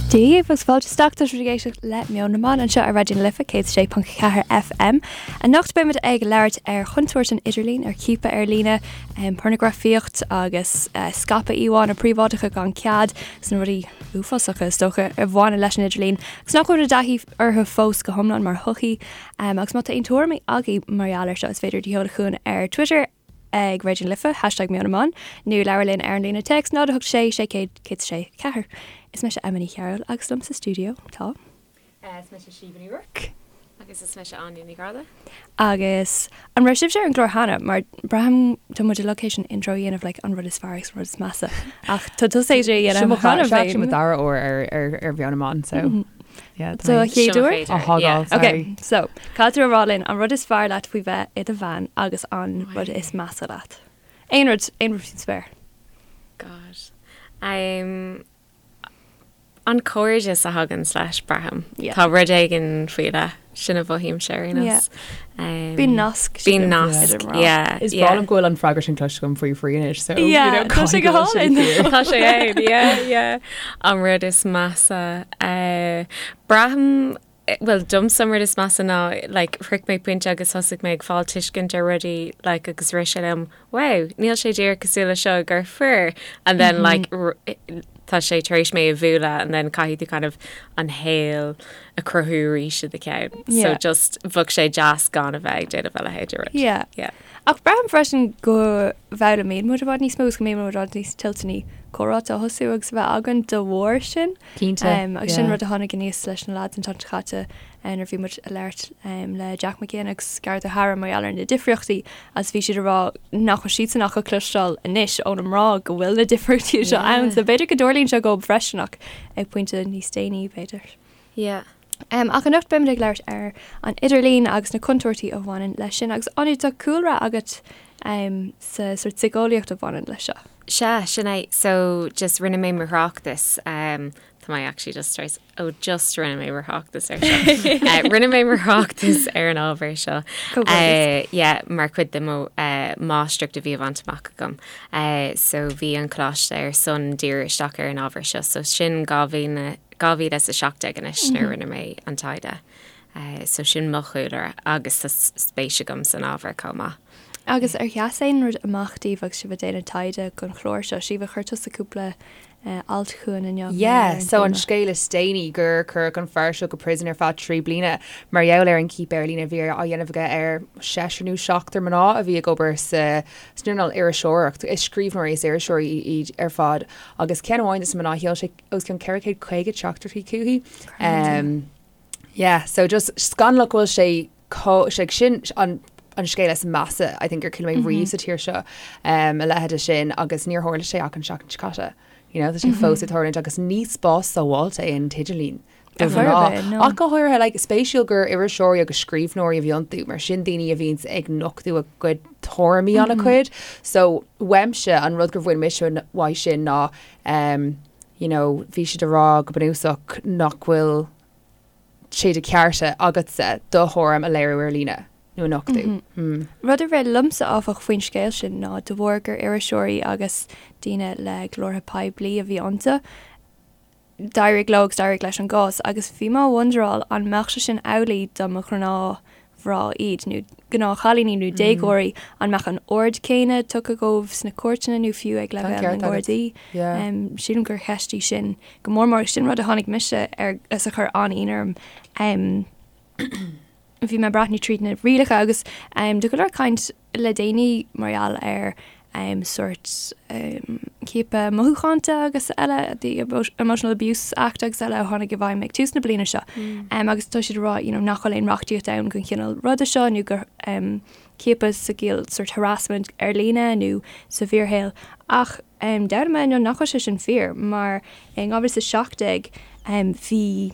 Dia dhaoibh agus fáilte isteach tá sibh ag éisteacht le Meon na mBan anseo ar Raidió na Life 106.4 FM. Anocht beimid ag labhairt ar chontúirt an idirlín, ar chiapadh ar líne, pornagrafaíocht agus scaipeadh íomhánna príobháideacha gan cead, agus na rudaí uafásacha is dócha a bhaineann leis an idirlíon agus nach bhfuil i dtaithí orthu fós go hiomlán mar shochaí. Agus má tá aon tuairimí agaibh mar gheall air seo is féidir iad a sheoladh chugainn ar Twitter ag Raidió na Life, hashtag Meon na mBan, nó labhair linn ar an líne téacs 0 8 6 600 106 4. Is mise Emma Ní Chearúil agus liom sa stiúideo tá. Is mise Síomha Ní Ruairc. Agus is mise Áine Ní Ghráda. Agus an raibh sibhse ar an gclár cheana? Mar braithim tá muid uilig théis an intro a dhéanamh like an rud is fearr agus an rud is measa. Ach tá tusa théis é a dhéanamh cheana féin. Seo mo dara uair ar ar ar Mheon na mBan so yeah. So a chéad uair? Á thógáil, sorry. Ok, so caithfidh tú a rá linn an rud is fearr leat faoi bheith i do bhean agus an rud is measa leat. Aon rud, aon rud faoin spéir. God. Um, an cairdeas a thagann leis, braithim. Yeah. Tá rud éigin faoi leith, sin a mhothaímse ar aon nós. Yeah. Bíonn nasc. Bíonn nasc, yeah. Is breá liom go bhfuil an freagra sin cloiste agam faoi faoi anois, so yeah, you know, tá sé go hálainn. Tá sé ann, yeah, yeah. An rud is measa. Uh, braithim bhuel domsa an rud is measa ná like shroich mé pointe agus thosaigh mé ag fáil tuiscint ar rudaí like agus rith sé liom wow níl sé díreach cosúil le seo gur fir and then like tá sé tar éis mé a bhualadh and then caithfidh tú kind of an shaol a chruthú arís i do cheann. So just bheadh sé deas gan a bheith ag déanamh a leithéid de rud. Yeah. Yeah. Ach braithim freisin go bhfoghlaimíonn muid i bhfad níos mó agus go mbíonn muid i bhfad níos toilteanaí comhráite a thosú agus a bheith againn de bharr sin. Cinnte, Agus sin yeah. rud a tháinig aníos leis na lads an tseachtain seo caite nuair a bhí muid ag labhairt le Jack Mac Ginn agus Gareth O'Hara mar gheall ar na difríochtaí agus bhí siad ag rá nach bhfuil siadsan ach ag cloisteáil anois ó na mná go bhfuil na difríochtaí seo ann. So b'fhéidir go dtarlaíonn sé dóibh freisin ach ag pointe níos déanaí b'fhéidir. Yeah. Ach anocht beimid ag labhairt ar an idirlíon agus na contúirtí a bhaineann leis sin agus Áine tá cúlra agat sa sort síceolaíocht a bhaineann leis seo. Sea, sin é. So just rinne mé mo thráchtas, tá mé actually just tar éis, oh just rinne mé mo thráchtas ar seo. Rinne mé mo thráchtas ar an ábhar seo. Comhghairdeas. Yeah, mar chuid de mo máistreacht a bhí á bhaint amach agam. So bhí an coláiste ar son díriú isteach ar an ábhar seo. So sin 2000, 2017 anois nuair a rinne mé an taighde. So sin mo chúlra agus tá spéis agam san ábhar chomh maith. Agus ar sheas aon rud amach daoibh agus sibh ag déanamh taighde don chlár seo? Síomha, chuir tusa cúpla alt chugainn inniu mar Yeah, gheall ar an so an téama. scéal is déanaí gur cuireadh an fear seo go prison ar feadh 3 bliana mar gheall ar an ciapadh ar líne a bhí á dhéanamh aige ar seisear nó seachtar mná a bhí ag obair sa san earnáil iriseoireacht. Is scríbhneoirí is iriseoirí iad ar fad agus ceann amháin de na mná sheol sé os cionn 450 teachtaireachtaí chuici. Yeah, so just scannalach go bhfuil sé chomh, sé sin an an scéal is measa I think ar chuala mé riamh sa tír seo a leithéid sin agus níor tharla sé ach an seachtain seo caite. You know, tá sé fós ag tarlúint agus ní spás sábháilte é an t-idirlíon do mhná. Ach go háirithe, like, spéisiúil gur iriseoirí agus scríbhneoirí a bhí iontu, mar sin daoine a bhíonns ag nochtadh a gcuid tuairimí an-chuid. So, uaimse, an rud gur bhain mise uaidh sin ná um, you know, bhí siad ag rá go bunúsach nach bhfuil sé de chearta agatsa do thuairim a léiriú ar líne nó a nochtadh. Mm. Rud a rith liomsa áfach faoin scéal sin ná de bharr gur iriseoirí agus daoine le glórtha poiblí a bhí iontu, d'éirigh leo agus d'éirigh leis an gcás agus bhí mé ag wonderáil an mbeadh sé sin amhlaidh dá mba ghnáthmhná iad nó gnáthchailíní nó déagóirí, an mbeadh an aird céanna tugtha dóibh sna cúirteanna nó fiú ag leibhéal na nGardaí? Sílim gur cheist í sin go mór mór agus sin rud a tháinig mise ar is a chuir an-ionadh orm. Bhí mé ag breathnú tríd na rialacha agus tá go leor caint le déanaí mar gheall ar sórt ciapadh mothúchánta agus eile, the Emotional Abuse Act agus eile a tháinig i bhfeidhm ag tús na bliana seo. Agus tá siad ag rá you know nach bhfuil aon reachtaíocht ann don chineál ruda seo nó gur ciapadh sa gciall sórt harassment ar líne nó sa bhfíorshaol. Ach d'fhoghlaim mé inniu nach bhfuil sé sin fíor mar in 2017 bhí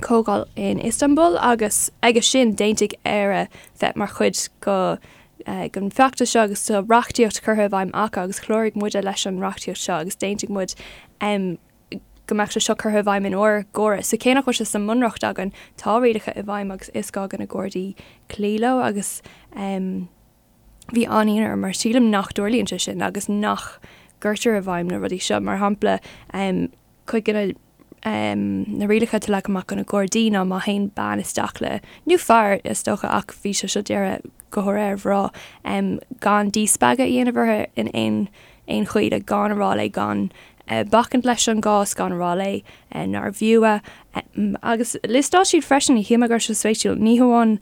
comhdháil in Istanbul agus aige sin d'aontaigh Éire bheith mar chuid go den bhfeachtas seo agus tá reachtaíocht curtha i bhfeidhm acu agus chláraigh muide leis an reachtaíocht seo agus d'aontaigh muid go mbeadh sé seo curtha i bhfeidhm in ár gcóras. So cé nach bhfuil sé sa mbunreacht againn, tá rialacha i bhfeidhm agus is gá do na Gardaí cloí leo agus bhí an-ionadh orm mar sílim nach dtarlaíonn sé sin agus nach gcuirtear i bhfeidhm na rudaí seo. Mar shampla, cuid de na. Na rialacha atá leagtha amach do na Gardaí ná má théann bean isteach le, nó fear is dócha ach bhí sé seo dírithe go háirithe ar mhná, gan díspeagadh a dhéanamh uirthi in aon aon chaoi, like gan a rá léi gan bacaint leis an gcás, gan a rá léi nárbh fhiú é. Agus liostáil siad freisin, shíl mé go raibh sé spéisiúil, ní hamháin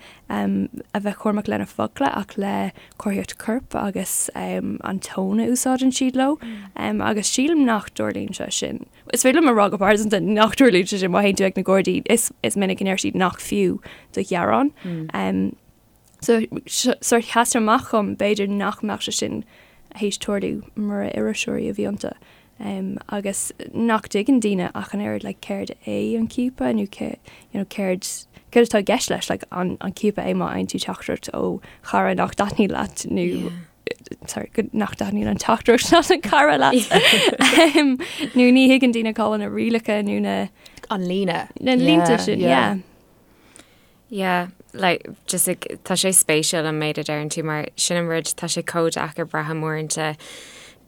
a bheith cúramach lena focla ach le comharthaíocht coirp agus an tón a úsáideann siad leo. Agus sílim nach dtarlaíonn sé sin. Is féidir liom a rá go pearsanta nach dtarlaíonn sé sin má théann tú ag na Gardaí, is is minic go ndeir siad nach fiú do ghearán. So sórt sheas amach dhom b'fhéidir nach mbeadh sé sin théis tarlú mura iriseoirí a bhí iontu. Agus nach dtuigeann daoine ach an oiread like céard é an ciapadh nó cé you know céard céard atá i gceist leis like an an ciapadh é má fhaigheann tú teachtaireacht ó chara nach dtaitníonn leat nó yeah. sorry, go nach dtaitníonn an teachtaireacht ná an cara leat. Nó ní thuigeann daoine cá bhfuil na rialacha nó na an líne. Na línte sin, yeah. Yeah, like, just like, tá sé spéisiúil an méid a deireann tú mar sin an rud tá sé chomh deacair braithim uaireanta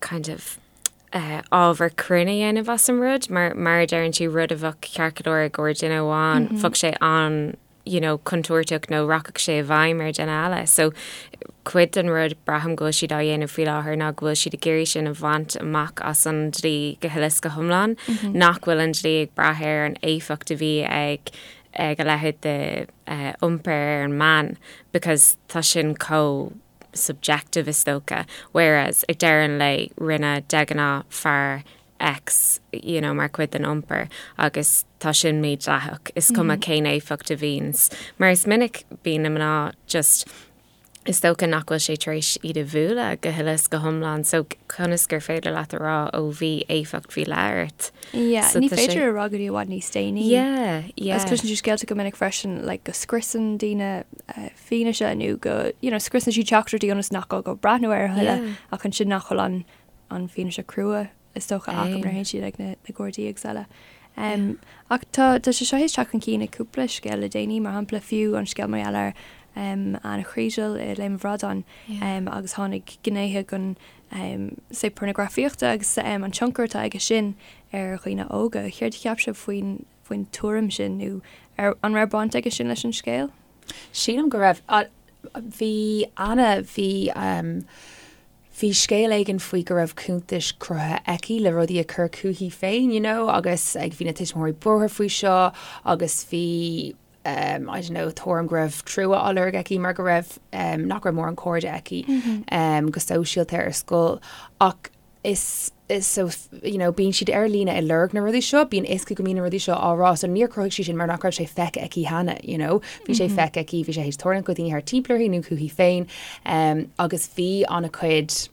kind of uh, ábhar cruinn a dhéanamh as an rud mar mar a deireann tú rud a bheadh ceart go leor i gcomhair duine amháin mm -hmm. bheadh sé an you know, contúirteach nó rachadh sé i bhfeidhm ar dhuine eile. So cuid den rud braithim go bhfuil siad á dhéanamh faoi láthair ná go bhfuil siad ag iarraidh sin a bhaint amach as an dlí go huile is go hiomlán, mm -hmm. nach bhfuil an dlí ag brath ar an éifeacht a bhí ag ag a leithéid de uh, iompar ar an mbean because tá sin chomh subjective is dócha, whereas ag deireadh an lae rinne de ghnáth fear X you know, mar chuid den iompar agus tá sin mídhleathach. Is cuma mm -hmm. cén éifeacht a bhíonns. Mar is minic bíonn na mná just is dócha nach bhfuil sé tar éis iad a bhualadh go huile is go hiomlán so conas gur féidir leat a rá ó bhí éifeacht faoi leith ort. Yeah, so ní féidir a rá go dtí i bhfad níos déanaí. Yeah, yeah. Agus cloiseann tú scéalta go minic freisin like, go scriosann daoine uh, fianaise nó go you know, scriosann siad teachtaireachtaí ionas nach gá dóibh breathnú air a thuilleadh yeah. ach ansin nach bhfuil an, an fianaise crua is dócha acu nuair a théann siad ag na, na Gardaí agus eile. Um, ach tá, tá sé seo théis teacht chun cinn i cúpla scéal le déanaí, mar shampla fiú an scéal mar gheall ar um, Anna Kriégel i Léim an Bhradáin yeah. um, agus tháinig gnéithe den um, say pornagrafaíochta agus um, an tionchar atá aige sin ar dhaoine óga. Céard a cheap sibh faoin faoin tuairim sin nó ar, an raibh baint aige sin leis an scéal? Sílim go raibh. Bhí Anna, bhí bhí scéal éigin faoi go raibh cuntais cruthaithe aici le rudaí a chur chuici féin, you know, agus ag bhí na tuismitheoirí buartha faoi seo agus bhí um, I don't know, tuairim go raibh trua á lorg aici mar go raibh um, nach raibh mórán cairde aici mm -hmm. um, go sóisialta ar scoil ach is is so you know bíonn siad ar líne ag lorg na rudaí seo, bíonn fhios acu go mbíonn na rudaí seo á rá so níor chruthaigh sí sin mar nach raibh sé feicthe aici cheana you know bhí sé feicthe aici, bhí sé théis tarlúint do dhaoine thart timpeall uirthi nó chuici féin um, agus bhí an-chuid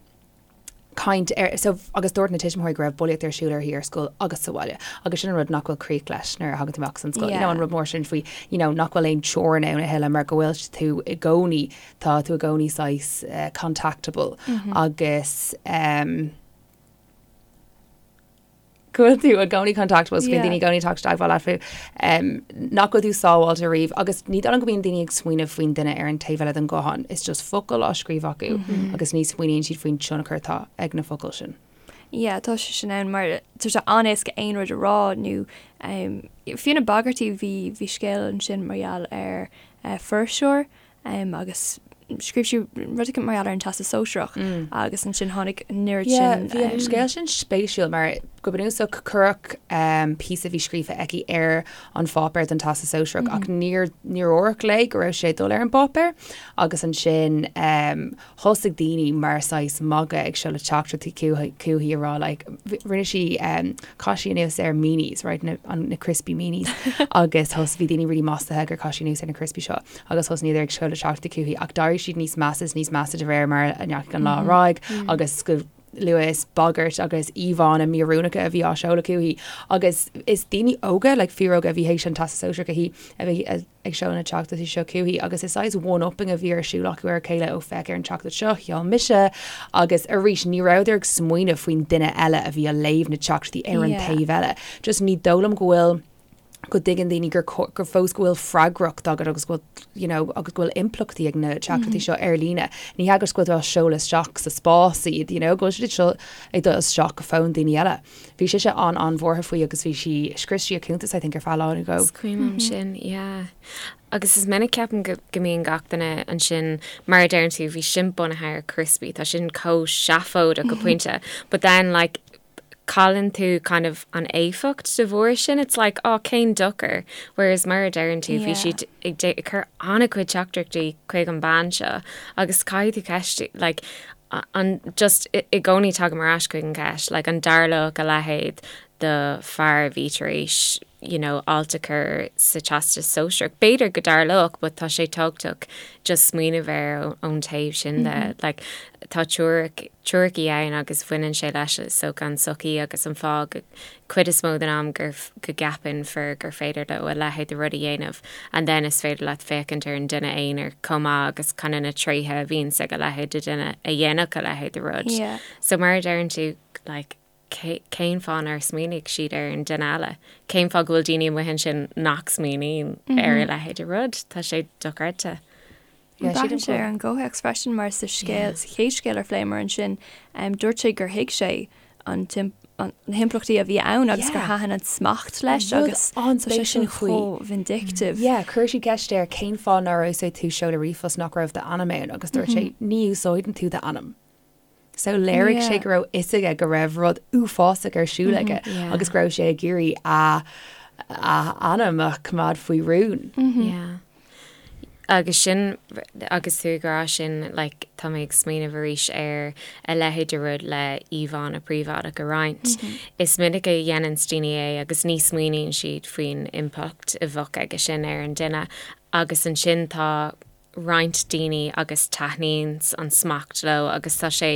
caint ar so agus dúirt na tuismitheoirí go raibh bulaíocht ar siúl uirthi ar scoil agus sa bhaile agus sin an rud nach bhfuil críoch leis nuair a thagann tú amach as an scoil you know an rud mór sin faoi you know nach bhfuil aon teorainn ann a thuilleadh mar go bhfuil tú i gcónaí Tá tú i gcónaí saghas contactable agus go bhfuil tú i gcónaí contactable so bíonn daoine i gcónaí ag teacht i dteagmháil leat faoi nach bhfuil tú sábháilte riamh agus ní dóigh liom go mbíonn daoine ag smaoineamh faoin duine ar an taobh eile den ghuthán. Is just focal á scríobh acu agus ní smaoiníonn siad faoin tionchar atá ag na focail sin. Yeah, tá sé sin ann mar tá sé an-éasca aon rud a rá nó fiú na bagairtí bhí bhí scéal ansin mar gheall ar fuirseoir agus scríobh sí rud éicint mar gheall ar an Teastas Sóisearach agus ansin tháinig an oiread sin. Bhí an scéal sin spéisiúil mar go bunúsach cuireadh píosa a bhí scríofa aici ar an pháipéar don Teastas Sóisearach ach níor níor dúradh léi go raibh sé ag dul ar an bpáipéar agus ansin thosaigh daoine mar saghas magadh ag seoladh teachtaireachtaí chuici a rá like rinne sí chaith sí anuas ar meanies right na na crispy meanies agus thos bhí daoine really maslaithe gur chaith sí anuas ar na crispy seo agus thosnaíodar ag seoladh teachtaireachtaí chuici ach d'éirigh siad níos measa is níos measa de réir mar a ndeachaigh an lá ar aghaidh agus go luath is bagairt agus íomhánna míoiriúnacha a bhí á seoladh chuici agus is daoine óga like fíoróga a bhí théis an Teastas Sóisearach a shuí a bhí ag seoladh na teachtaireachtaí seo chuici agus is saghas one-upping a bhí ar siúl acu ar a chéile ó féach ar an teachtaireacht seo, sheol mise agus arís ní rabhadar ag smaoineamh faoin duine eile a bhí á léamh na teachtaireachtaí ar an taobh eile. Just ní dóigh liom go bhfuil. go dtuigeann daoine gur gur fós go bhfuil freagracht agat agus go bhfuil you know, agus go bhfuil impleachtaí ag na teachtaireachtaí seo ar líne. Ní hea go bhfuil tú á seoladh isteach sa spás iad, you know, go bhfuil siad seo ag dul isteach go fón daoine eile. Bhí sise an-an-bhuartha faoi agus bhí sí, scrios sí a cuntas I think ar feadh lá nó dhó. Is cuimhin liom sin, yeah. Agus is minic ceapaim go go mbíonn gach duine ansin, mar a deireann tú, bhí sin bunaithe ar criospaí, tá sin chomh seafóideach go pointe, but then like cailleann tú kind of an éifeacht de bharr sin, it's like oh cén dochar, whereas mar a deireann tú bhí siad ag ag cur an-chuid teachtaireachtaí chuig an bean seo agus caithfidh tú ceist like an just i gcónaí tagaim ar ais chuig an gceist like an dtarlódh a leithéid do fear a bhí tar éis you know alt a chur sa Teastas Sóisearach. B'fhéidir go dtarlódh but tá sé tábhachtach just smaoineamh air ón taobh sin de. Like tá teoiric, teoiricí ann agus bhaineann sé leis so an tsochaí agus an fáth go cuid is mó den am gur go gceapann fir gur féidir leo a leithéid de rud a dhéanamh and then is féidir leat féachaint ar an duine aonair chomh maith agus kind of na tréithe a bhíonns ag a leithéid de duine a dhéanfadh a leithéid de rud. Yeah. So mar a deireann tú like cén fáth nár smaoinigh siad ar an duine eile? Cén fáth go bhfuil daoine amuigh ansin nach smaoiníonn ar a leithéid de rud? Tá sé dochreidte. Braitheann sé ar an gcomhthéacs freisin mar sa scéal, sa chéad scéal ar phléamar ansin, dúirt sé gur thuig sé an na himpleachtaí a bhí ann agus gur thaitin an smacht leis agus tá sé sin chomh vindictive. Yeah, chuir siad ceist air cén fáth nár úsáid tú seoladh ríomhphost nach raibh d'ainm ann agus dúirt sé ní úsáideann tú d'ainm. So léirigh sé go raibh fhios aige go raibh rud uafásach ar siúl aige agus go raibh sé ag iarraidh a a ainm a choimeád faoi rún. Yeah. Agus sin, agus tú ag rá sin, like, tá mé ag smaoineamh arís ar a leithéid de rud le íomhánna príobháideach a roinnt. Is minic a dhéanann daoine é agus ní smaoiníonn siad faoin impleacht a bheadh aige sin ar an duine agus ansin tá roinnt daoine agus taitníonn an smacht leo agus tá sé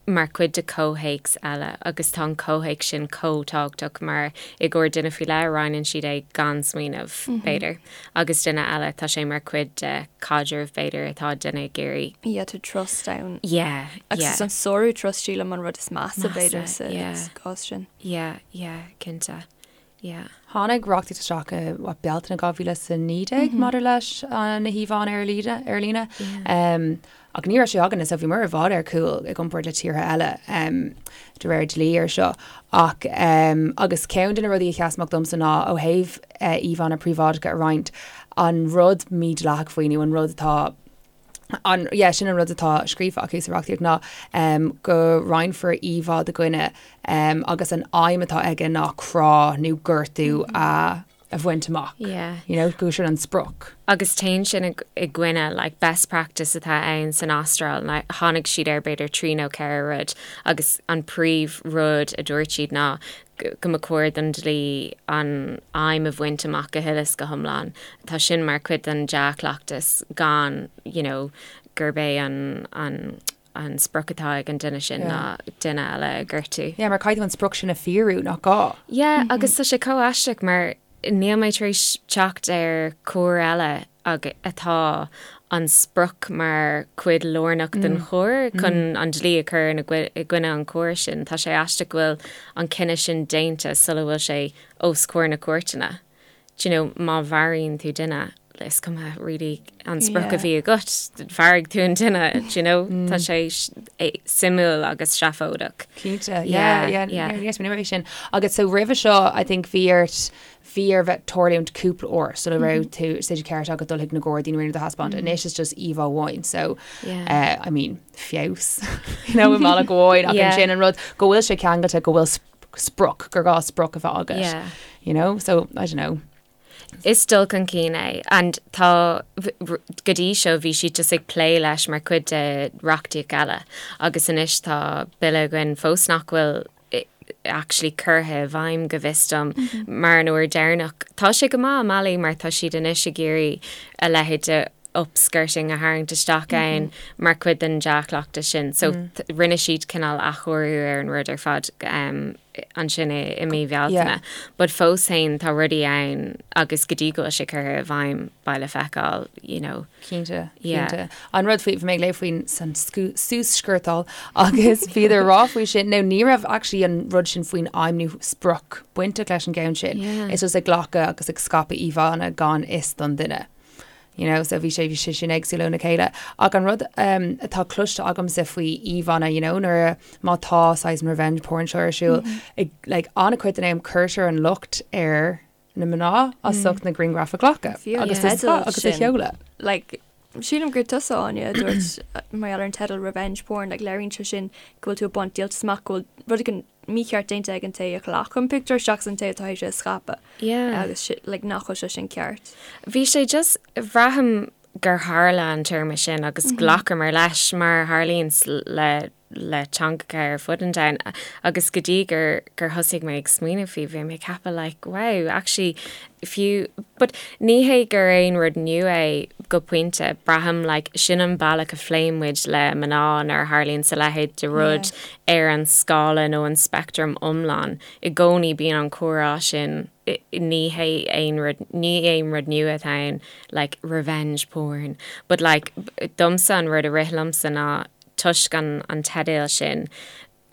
mar chuid de chomhthéacs eile agus tá an comhthéacs sin chomh tábhachtach mar i gcomhair duine faoi leith roinneann siad é gan smaoineamh, b'fhéidir, agus duine eile tá sé mar chuid de chaidreamh b'fhéidir atá duine ag iarraidh. Yeah, tá trust ann. Yeah, yeah. Agus is an sárú trust sílim an rud is measa b'fhéidir sa gcás sin. Yeah, yeah, cinnte. Yeah. Tháinig reachtaíocht isteach i what, Bealtaine 2019 maidir leis na híomhánna ar líne, ar líne. Ach ní raibh sé againne, so bhíomar i bhfad ar chúl i gcomparáid le tíortha eile de réir dlí ar seo. Ach agus ceann de na rudaí a sheas amach domsa ná ó thaobh íomhánna príobháideacha a roinnt, an rud mídhleathach faoi nó an rud atá an, yeah, sin an rud atá scríofa acu sa reachtaíocht ná um, go roinnfear íomhá de dhuine um, agus an aidhm atá aige ná crá nó gortú a, a bhaint amach. Yeah. You know, go sin an sprioc. Agus téann sin i, i gcoinne like, best practice atá ann san Astráil, like, tháinig siad ar b'fhéidir trí nó ceithre rud agus an príomh rud a dúirt siad ná go mba chóir don dlí an aidhm a bhaint amach go huile is go hiomlán. Tá sin mar chuid den dea-chleachtas gan you know gurb é an an an sprioc atá ag an duine sin ná duine eile a ghortú. Yeah, mar caithfidh tú an sprioc sin a fíorú, nach gá? Yeah, agus tá sé chomh aisteach mar níl mé tar éis teacht ar choir eile ag atá an sprioc mar chuid lárnach den choir chun an dlí a chur i gcoinne an choir sin. Tá sé aisteach go bhfuil an cinneadh sin déanta sula bhfuil sé os comhair na cúirteanna. Do you know, má mharaíonn tú duine, is cuma really an sprioc a bhí agat, mharaigh tú an duine, do you know, tá sé suimiúil agus seafóideach. Cinnte, yeah, yeah, yeah. Yes, mé sin. Agus so roimhe seo, I think bhí ort Bhí air bheith tarlúint cúpla uair sula raibh tú sé de ceart agat dul chuig na Gardaí nó rud a thaispeáint. Anois is just íomhá amháin so I mean feabhas you know i mbealach amháin ach ansin an rud go bhfuil sé ceangailte go bhfuil sprioc gur gá sprioc a bheith agat you know so I don't know. Is dul chun cinn é and tá go dtí seo bhí siad just ag plé leis mar chuid de reachtaíocht eile agus anois tá bille againn fós nach bhfuil actually curtha i bhfeidhm go bhfios dom mar an uair deireanach. Tá sé go maith i mbealaí mar tá siad anois ag iarraidh a leithéid de Upskirting a tharraingt isteach ann mar chuid den dea-chleachtas sin. So rinne siad cineál athchóiriú ar an rud ar fad ansin i mí Bhealtaine. But fós féin tá rudaí ann agus go dtí go bhfuil sé curtha i bhfeidhm beidh le feiceáil, you know. Cinnte, cinnte. An rud faoi, bhí mé ag léamh faoin san suas-sciortáil agus bhíodar ag rá faoi sin, nó ní raibh actually an rud sin faoin aidhm nó sprioc bainteach leis an gceann sin. Is just ag glacadh agus ag scaipeadh íomhánna gan fhios don duine. You know, so bhí sé bhí sé sin éagsúil óna chéile. Ach an rud um, atá cloiste agamsa faoi íomhánna, you know, nuair a má tá saghas an revenge porn seo ar siúl, mm -hmm. ag, like, an-chuid den am cuirtear an locht ar na mná as mm. ucht na grianghraif a ghlacadh agus yeah. agus a sheoladh. Like, Sílim gur tusa Áine a dúirt mar gheall ar an teideal revenge porn, like, léiríonn sé sin go bhfuil tú ag baint díoltas amach go bhfuil rud éigin mícheart déanta ag an té a ghlac an pictiúr seachas an té atá théis é a scaipeadh. Yeah. Agus si, like, nach bhfuil sé sin ceart. Bhí sé just, bhraithim gur tharla an téarma sin agus ghlacamar leis mar a tharlaíonn le le teangacha ar fud an domhain agus go dtí gur gur thosaigh mé ag smaoineamh faoi bhí mé ag ceapadh like wow actually fiú but ní hé gur aon rud nua é go pointe braithim like sin an bealach a phléann muid le mná nuair a tharlaíonn a leithéid de rud ar an scála nó an speictream iomlán i gcónaí bíonn an comhrá sin ní hé aon rud ní aon rud nua atá ann like revenge porn but like domsa an rud a rith liomsa ná toisc an an teideal sin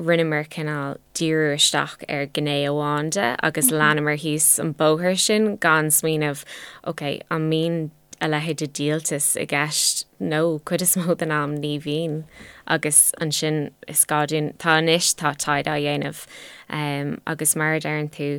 rinneamar cineál díriú isteach ar ghné amháin de agus leanamar thíos an bóthar sin gan smaoineamh ok an mbíonn a leithéid de dhíoltas i gceist nó cuid is mó den am ní bhíonn agus ansin is gá dúinn tá anois tá taighde á dhéanamh agus mar a deireann tú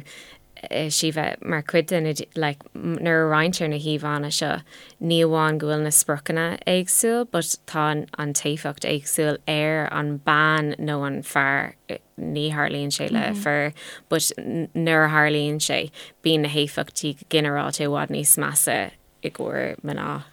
Síomha, mar chuid de na, like, nuair a roinntear na híomhánna seo, ní amháin go bhfuil na spriocanna éagsúil but tá an t-éifeacht éagsúil ar an bean nó an fear, ní tharlaíonn sé le fir but nuair a tharlaíonn sé, bíonn na héifeachtaí go ginearálta i bhfad níos measa i gcomhair mná.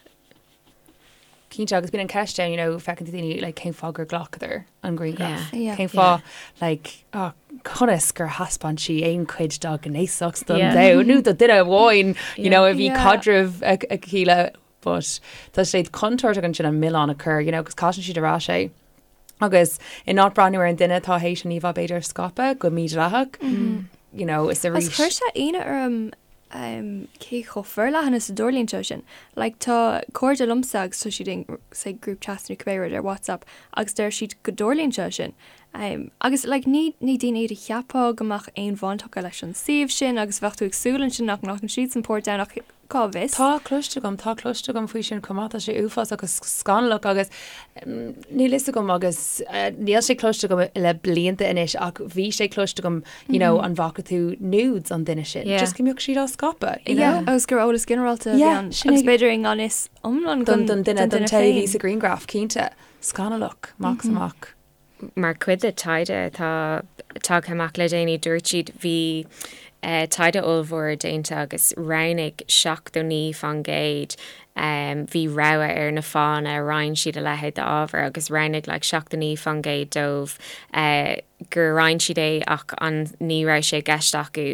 Cinnte, agus bíonn an ceist ann, you know, feiceann tú daoine, like, cén fáth gur ghlacadar an grianghraf? Yeah. Cén fáth, like, oh, conas gur thaispeáin sí aon chuid dá gnéasacht don yeah. domhan nó do duine amháin, you know, a bhí yeah. caidreamh aici le, but tá sé contúirteach ansin an milleán a chur, you know, agus caitheann siad ar ais é. Agus in áit breathnú ar an duine atá théis an íomhá b'fhéidir a scaipeadh go mídhleathach, you know, is arís. Agus chuir sé ionadh orm cé chomh forleathan is a dtarlaíonn sé sin. Like tá cairde liomsa agus tá siad in say group chats nó cibé rud ar WhatsApp agus deir siad go dtarlaíonn sé sin. Agus like ní ní daoine iad a cheapfá go mbeadh aon bhaint acu leis an suíomh sin agus bheadh tú ag súil ansin nach nglacann siadsan páirt ann ach Cá bhfios? Tá cloiste agam, tá cloiste agam faoi sin chomh maith, tá sé uafásach agus scannalach agus níl fhios agam agus níl sé cloiste agam le blianta anois ach bhí sé cloiste agam you know an bhfaca tú nudes an duine sin, just go mbeadh siad á scaipeadh, you know? Agus gur eolas ginearálta a bhí ann agus b'fhéidir i ngan fhios iomlán don duine, don té a bhí sa ghrianghraf, cinnte. Scannalach, amach is amach. Mar chuid de taighde atá tagtha amach le déanaí, dúirt siad bhí taighde ollmhór déanta agus roghnaigh 79% bhí rogha ar na fáthanna a roinn siad a leithéid d'ábhar agus roghnaigh like 79% dóibh gur roinn siad é ach an ní raibh sé i gceist acu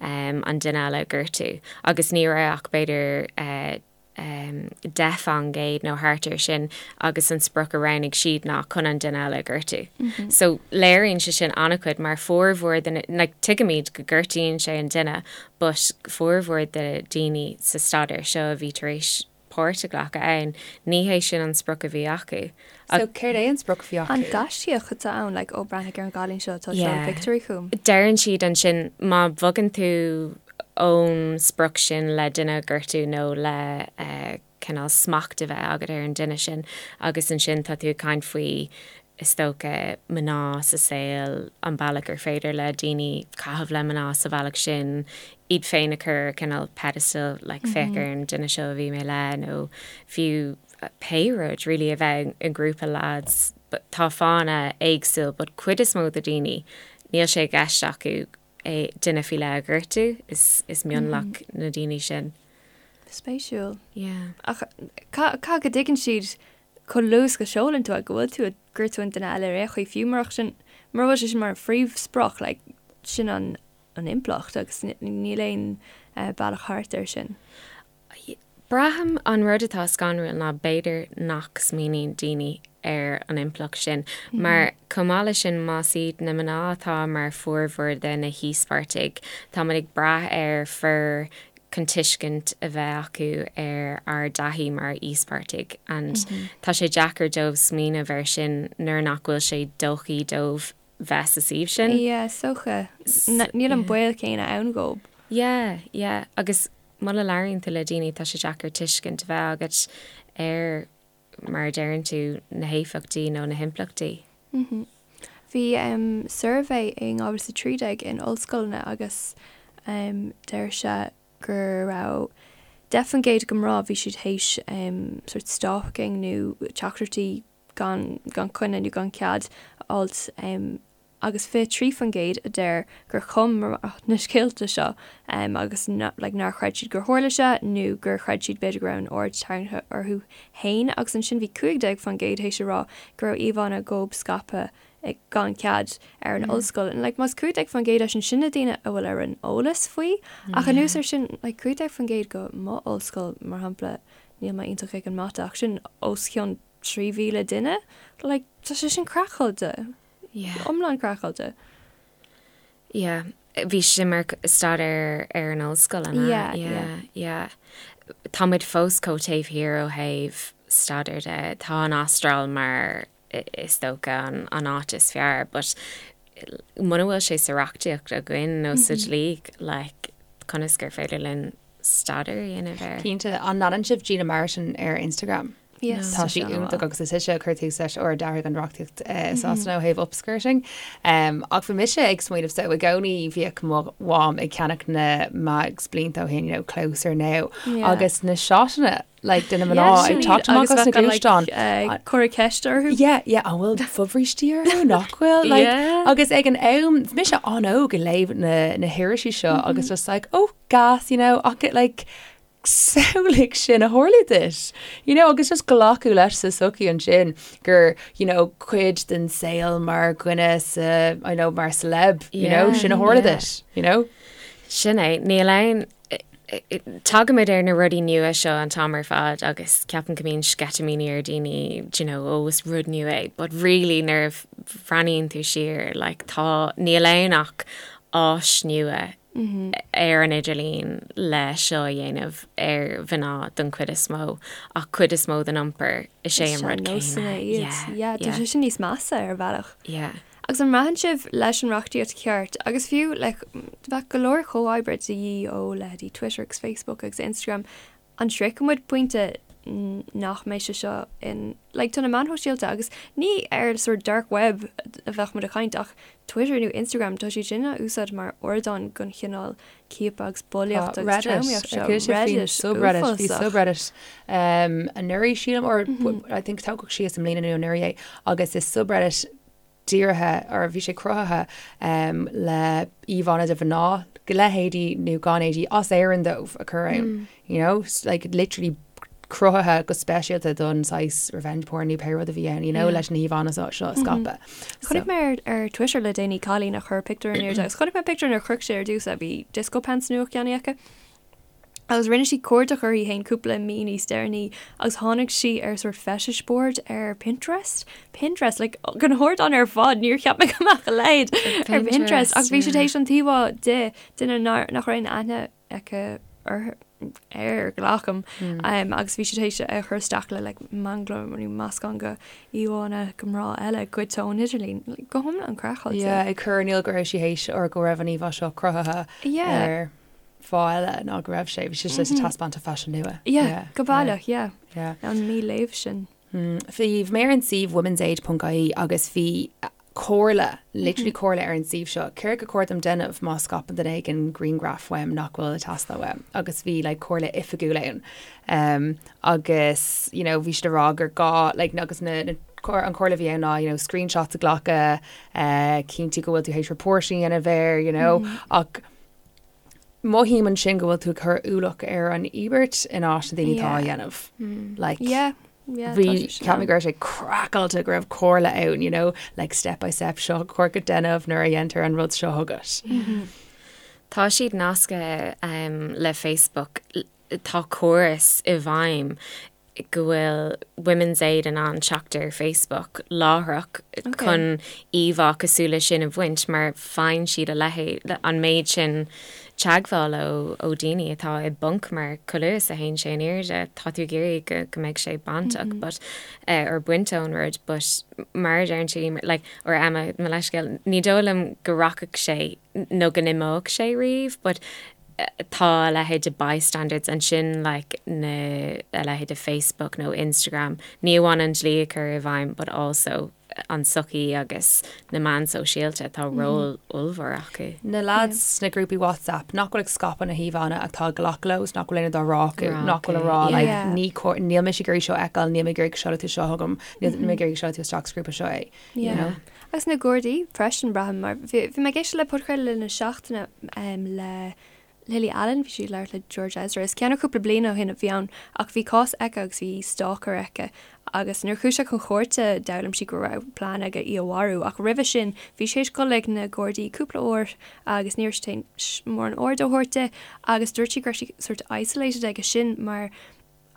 an duine eile a ghortú agus ní raibh ach b'fhéidir 10% nó thart air sin agus an sprioc a roghnaigh siad ná chun an duine eile a ghortú. So léiríonn sé sin an-chuid mar formhór de na, like tuigimid go gortaíonn sé an duine but formhór de daoine sa staidéar seo a bhí tar éis páirt a ghlacadh ann, ní hé sin an sprioc a bhí acu. So céard é an sprioc a bhí acu? An gaiscíoch atá ann, like ó breathnaigh ar an gcailín seo atá ag seoladh pictiúirí chugam. Deireann siad ansin má bhogann tú ón sprioc sin le duine a ghortú nó le cineál smacht a bheith agat ar an duine sin agus ansin tá tú ag caint faoi is dócha mná sa saol, an bealach gur féidir le daoine caitheamh le mná sa bhealach sin, iad féin a chur ar cineál pedestal like féach ar an duine seo a bhí mé le nó fiú pé rud really a bheith i ngrúpa lads but tá fáthanna éagsúil but cuid is mó de daoine níl sé i gceist acu é duine faoi leith a ghortú, is is mionlach na daoine sin. Spéisiúil. Yeah. Ach caithfidh go dtuigeann siad chomh luath is go seolann tú é go bhfuil tú ag gortú an duine eile ar aon chaoi fiú murach sin mura bhfuil sé sin mar an phríomhsprioc like sin an an impleacht agus níl aon bealach thart air sin. Braithim an rud atá scanrúil ná b'fhéidir nach smaoiníonn daoine ar an impleacht sin, mar chomh maith leis sin más iad na mná atá mar formhór de na híospartaigh, táimid ag brath ar fir chun tuiscint a bheith acu ar ár dtaithí mar íospartaigh and tá sé deacair dóibh smaoineamh air sin nuair nach bhfuil sé dóichí dóibh bheith sa suíomh sin. Yeah, is dócha. Níl an baol céanna ann dhóibh. Yeah, yeah. Agus muna labhraíonn tú le daoine tá sé deacair tuiscint a bheith agat ar, mar a deireann tú, na héifeachtaí nó na himpleachtaí. Bhí suirbhé in 2013 in ollscoileanna agus deir sé go raibh 10% de mná bhí siad théis sort stalking nó teachtaireachtaí gan gan coinne nó gan cead a fháilt agus 23% a deir gur chum mná na scéalta seo agus like nár chreid siad gur tharla sé nó gur chreid siad b'fhéidir go raibh an aird tarraingthe orthu féin agus ansin bhí 15% théis a rá go raibh íomhánna dhóibh scaipthe gan cead ar an ollscoil. And like más 15% é sin, sin na daoine a bhfuil ar an eolas faoi ach anuas ar sin like 15% go mo ollscoil mar shampla níl mé iontach ag an mata ach sin os cionn 3,000 duine? Like tá sé sin craiceáilte. Yeah. Iomlán craiceáilte. Yeah. Bhí sé mar staidéar ar an ollscoil, an ea? Yeah, yeah. Yeah, yeah. Tá muid fós chomh taobh thiar ó thaobh staidéar de. Tá an Astráil mar is dócha an, an áit is fearr, but muna bhfuil sé sa reachtaíocht againn nó sa dlí, like, conas gur féidir linn staidéar a dhéanamh air? Cinnte. An leanann sibh Gina Martin ar Instagram? Yes, Tá sí iontach agus is ise a chuir tús leis or a d'athraigh an reachtaíocht i Sasana ó thaobh upskirting. Ach bhí mise ag smaoineamh so i gcónaí bhíodh mo mham ag ceannach na mags blianta ó shin, you know, Closer Now agus na shotanna like de na mná ag teacht amach as na gluaisteáin. Cur ceist orthu? Yeah, yeah, an bhfuil fobhrístí orthu nach bhfuil? Like, agus ag an am, bhí mise an-óg ag léamh na, na hirisí seo agus just like, oh, gas, you know, ach it, like, samhlaigh sin a tharlú duit. You know, agus just glacadh leis sa sochaí ansin gur, you know, cuid den saol mar dhuine sa, I know, mar celeb, you know, sin a tharla duit, you know? Sin é, níl aon, tagaimid ar na rudaí nua seo an t-am ar fad agus ceapaim go mbíonn sceitimíní ar daoine, do you know, ó is rud nua é, but really nuair a bhreathnaíonn tú siar, like, tá, níl ann ach áis nua ar an idirlíon le seo a dhéanamh ar mhná don chuid is mó, ach cuid is mó den iompar, is é an rud céanna. Yeah, yeah. Tá sé sin níos measa ar bhealach. Yeah. Agus an mbraitheann sibh leis an reachtaíocht cheart, agus fiú like bheadh go leor comhoibre de dhíth ó leithéidí Twitter agus Facebook agus Instagram, an sroichfidh muid pointe nach mbeidh sé seo in like tá na meáin shóisialta agus ní ar sort dark web a bheadh muid ag caint ach Twitter nó Instagram tá siad sin á úsáid mar ardán don chineál ciapadh agus bulaíocht agus tromaíocht seo. Reddit, subreddit, bhí subreddit um, anuraidh sílim or I think tógadh síos i mbliana nó anuraidh é agus is subreddit dírithe or bhí sé cruthaithe um, le íomhánna de mhná le héadaí nó gan éadaí as Éirinn dóibh a chur ann. You know, like literally cruthaithe go speisialta don saghas revenge porn nó pé rud a bhí ann, you know, leis na híomhánna seo seo a scaipeadh. Chonaic mé ar ar Twitter le déanaí cailín a chuir pictiúr in airde agus chonaic mé pictiúr nuair a shroich sé ar dtús a bhí disco pants nua ceannaithe aici. Agus rinne sí cuardach uirthi féin cúpla mí níos deireanaí agus tháinig sí ar sort fetish board ar Pinterest. Pinterest, like, den ardán ar fad, níor cheap mé go mbeadh a leithéid ar Pinterest ach bhí sí tar éis an t-íomhá de duine nach raibh aon aithne aici air, air, glacaim, agus bhí sí tar éis é a chur isteach le like manglam nó meascán de íomhánna de mná eile goidte ón idirlíon. Like, go hiomlán craiceáilte. Yeah, ag cur in iúl go raibh sí théis or go raibh an íomhá seo cruthaithe ar fáth eile ná go raibh sé, bhí sé sa taispeántas faisin nua. Yeah, go baileach, yeah. An mí-léamh sin. Bhí mé ar an suíomh womensaid.ie agus bhí comhairle, literally comhairle ar an suíomh seo, céard gur chóir dom déanamh má scaipeann duine éigin grianghraf uaim nach bhfuil ag teastáil uaim agus bhí like comhairle oifigiúil ann. Um, agus you know, bhí siad ag rá gur gá like, agus na, na an chomhairle a bhí ann ná you know, screenshots a ghlacadh, uh, cinntiú go bhfuil tú théis report a dhéanamh air, you know, mm -hmm. ach mothaím ansin go bhfuil tú ag cur ualach ar an íobairt in áit na daoine atá á dhéanamh. Like, Yeah, yeah, bhí tá sé sin cheap mé ann. go raibh sé craiceáilte go raibh comhairle ann, you know, like step by step seo chóir duit déanamh nuair a dhéantar an rud seo chugat. Tá siad nasctha um, le Facebook. tá córas i bhfeidhm go bhfuil Women's Aid in ann teacht ar Facebook láithreach chun íomhá cosúil leis sin a bhaint mar faigheann siad a leithéid, an méid sin teagmhála ó daoine atá i bponc mar chomh luath is a théann sé in airde tá tú ag iarraidh go go mbeidh sé bainteach but or bainte ón rud but mar a deireann tú like or Emma mo leithscéal ní dóigh liom go rachadh sé nó go n-imeodh sé riamh but tá a leithéid de bystanders ansin like na a leithéid de Facebook nó Instagram, ní amháin an dlí a chur i bhfeidhm but also an tsochaí agus na meáin sóisialta, tá ról ollmhór acu. Na lads sna grúpaí WhatsApp nach bhfuil ag scaipeadh na híomhánna atá ag glacadh leo is nach bhfuil aon rud á rá acu, nach bhfuil ag rá like ní cóir, níl mise ag iarraidh seo a fheiceáil, níl mé ag iarraidh go seolfaidh tú seo chugam, níl mé ag iarraidh go seolfaidh tú isteach sa ghrúpa seo é. you know. Agus na Gardaí freisin, braithim, mar bhí mé ag éisteacht le podchraoladh na seachtaine le Lily Allen, bhí sí ag labhairt le George Ezra, is ceann cúpla bliain ó shin a bhí ann, ach bhí cás aici agus bhí stalker aici agus nuair a chuaigh sé chun cúirte d'fhoghlaim sí go raibh plean aige í a mharú ach roimhe sin bhí sé tar éis dul ag na Gardaí cúpla uair agus ní raibh siad tar éis mórán aird a thabhairt di agus dúirt sí go raibh sí sort isolated aige sin mar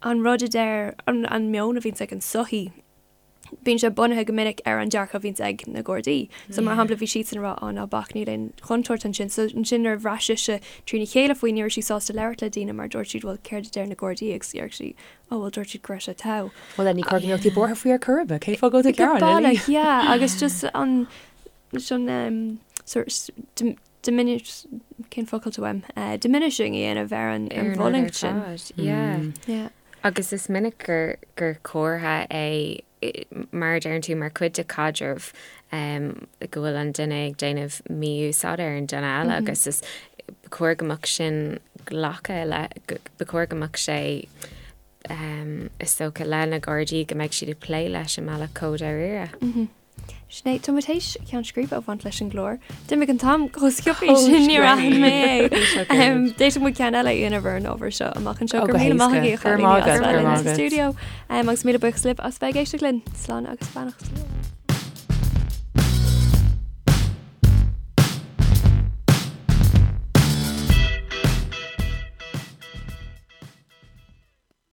an rud a deir an meon a bhíonns ag an sochaí. bíonn sé bunaithe go minic ar an dearcadh a bhíonns ag na Gardaí. So mar shampla bhí siadsan ag rá á ná bac níl aon chontúirt ansin. So ansin nuair a bhraith sise trína chéile faoi ní raibh sí sásta labhairt le daoine mar dúirt siad bhuel céard a deir na Gardaí agus dúirt sí ó bhuel dúirt siad go raibh sé togha. Bhuel then ní cóir go mbeadh tú buartha faoi ar chor ar bith, cén fáth go bhfuil tú ag gearán, Lily? Go baileach, yeah agus just an an um, sort diminish cén focal atá uaim uh, diminishing a dhéanamh ar an ar an bhfulaingt sin. Yeah. Yeah. Agus is minic gur gur comhartha é, mar a deireann tú, mar chuid de chaidreamh go bhfuil an duine ag déanamh mí-úsáid ar an duine eile agus is ba chóir go mbeadh sin glactha le, ba chóir go mbeadh sé is dócha le na Gardaí go mbeidh siad ag plé leis i mbealach chomh dáiríre. Sin é, tá muid théis ceann scríbe a bhaint leis an gclár. D'imigh an t-am chomh sciobtha sin níor aithin mé é. D'fhéadfadh muid ceann eile a dhéanamh ar an ábhar seo amach anseo. Go raibh míle maith agaibh a chailíní as bheith linn sa stiúideo. Agus míle buíochas libh as bheith ag éisteacht linn. Slán agus beannacht.